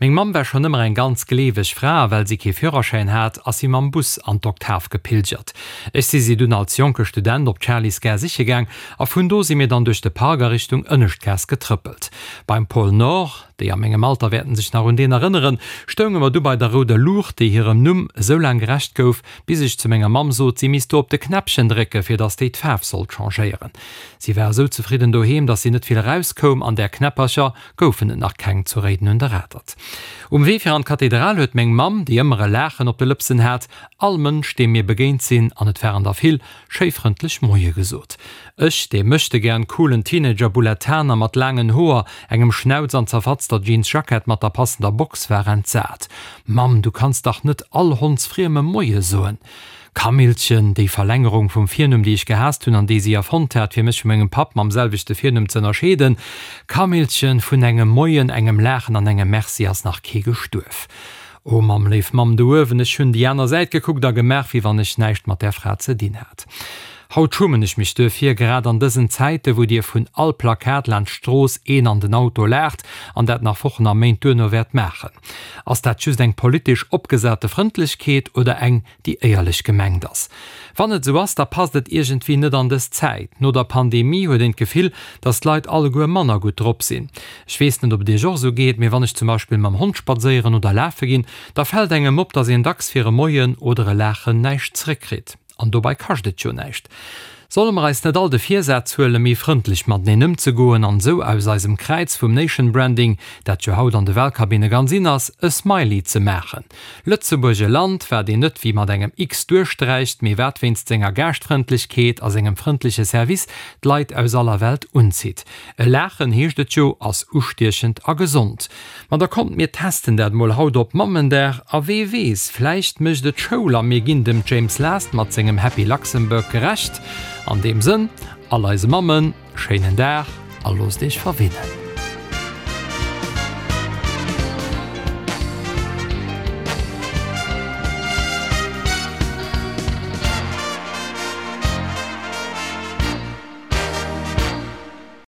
Meng Mamm war schonn ëmmer eng ganz gleeweg Fra a well si kee Führerschäin hat, ass si mam Bus an d'Oktav gepilgert. Ech si si dunn als jonke Student op d'Charlysgare siche gaang a vun do si mir dann duerch de Park a Richtung Ënneschtgaass getrëppelt. Beim Pôle Nord, déi a mengem Alter wäerten sech nach un deen erënneren, stounge mer du bei der rouder Luucht, déi hirem Numm esou laang gerecht gouf, bis ech zu menger Mamm sot, si misst do op de Knäppchen drécke fir dass déi d'Faarf sollt changéieren. Si war esou zefridden doheem, dass si net vill erauskoum an där Knäppercher goufen et nach keng zu Réiden un der Atert. Um Wee fir an d'Kathedral huet meng Mamm, déi ëmmer e Laachen op de Lëpsen hat, all Mënsch, deem mir begéint sinn, an et waren der vill, schéi frëndlech Moie gesot. Ech, dee möchtegern coolen Teenager-Bullettaner mat laangen Hoer, engem Schnauz an zerfatzter Jeansjackett mat der passender Box, war entsat. Mamm, du kanns dach net all Hondsfriemem Moie soen! Kamillchen, déi Verlängerung vum Virnumm, déi ech gehaasst hunn an déi si erfonnt hat, fir mech vu mengem Papp mam selwechte Virnumm z'ënnerscheeden. Kamillchen, vun engem Moien, engem Laachen an engem Merci ass nach kee gestuerf. O Mamm, léif Mamm do uewen, ech hunn déi aner Säit gekuckt a gemaach, wéi wann ech näischt mat där Fra ze dinn hat. Haut schummen ech mech duerfir, grad an dësen Zäite wou dir vun all Plakat laanscht d'Strooss een an den Auto laacht an dat nach Wochen a Méint duerno wäert maachen. Ass dat just eng politesch opgesate Frëndlechkeet oder eng, déi éierlech gemengt ass? Wann et esou ass, da passt et iergendwéi net an dës Zäit. No der Pandemie huet een d'Gefill, dass d'Leit alleguer manner gutt drop sinn. Ech weess net, ob et iech och esou geet, mee wann ech zum Beispill mam Hond spadséieren oder lafe ginn, da fält engem op, dass een dacks fir e Moien oder e Laachen näischt zréckkritt. An dobei kascht et jo näischt. Solle mer eis net all de Virsaz huelen, méi frëndlech mateneen ëmzegoen an esou aus eisem Kräiz vum Nation Branding, dat jo haut an de Wahlkabinne ganz in ass, e Smiley ze maachen? Lëtzebuerg, e Land, wat een net wéi mat engem X duerchsträicht, mee wat wéinst senger Gaaschtfrëndlechkeet a sengem frëndleche Service d'Leit aus aller Welt unzitt. E Laachen, heescht et jo, ass ustiechend a gesond. Ma da kommt mir testen dat mol haut op Mammendag a wee weess, vläicht mécht et Schoul a mir ginn dem James Last mat sengem Happy Luxembourg gerecht. An deem Sënn, all eise Mammen, schéinen Dag a loosst iech verwinnen.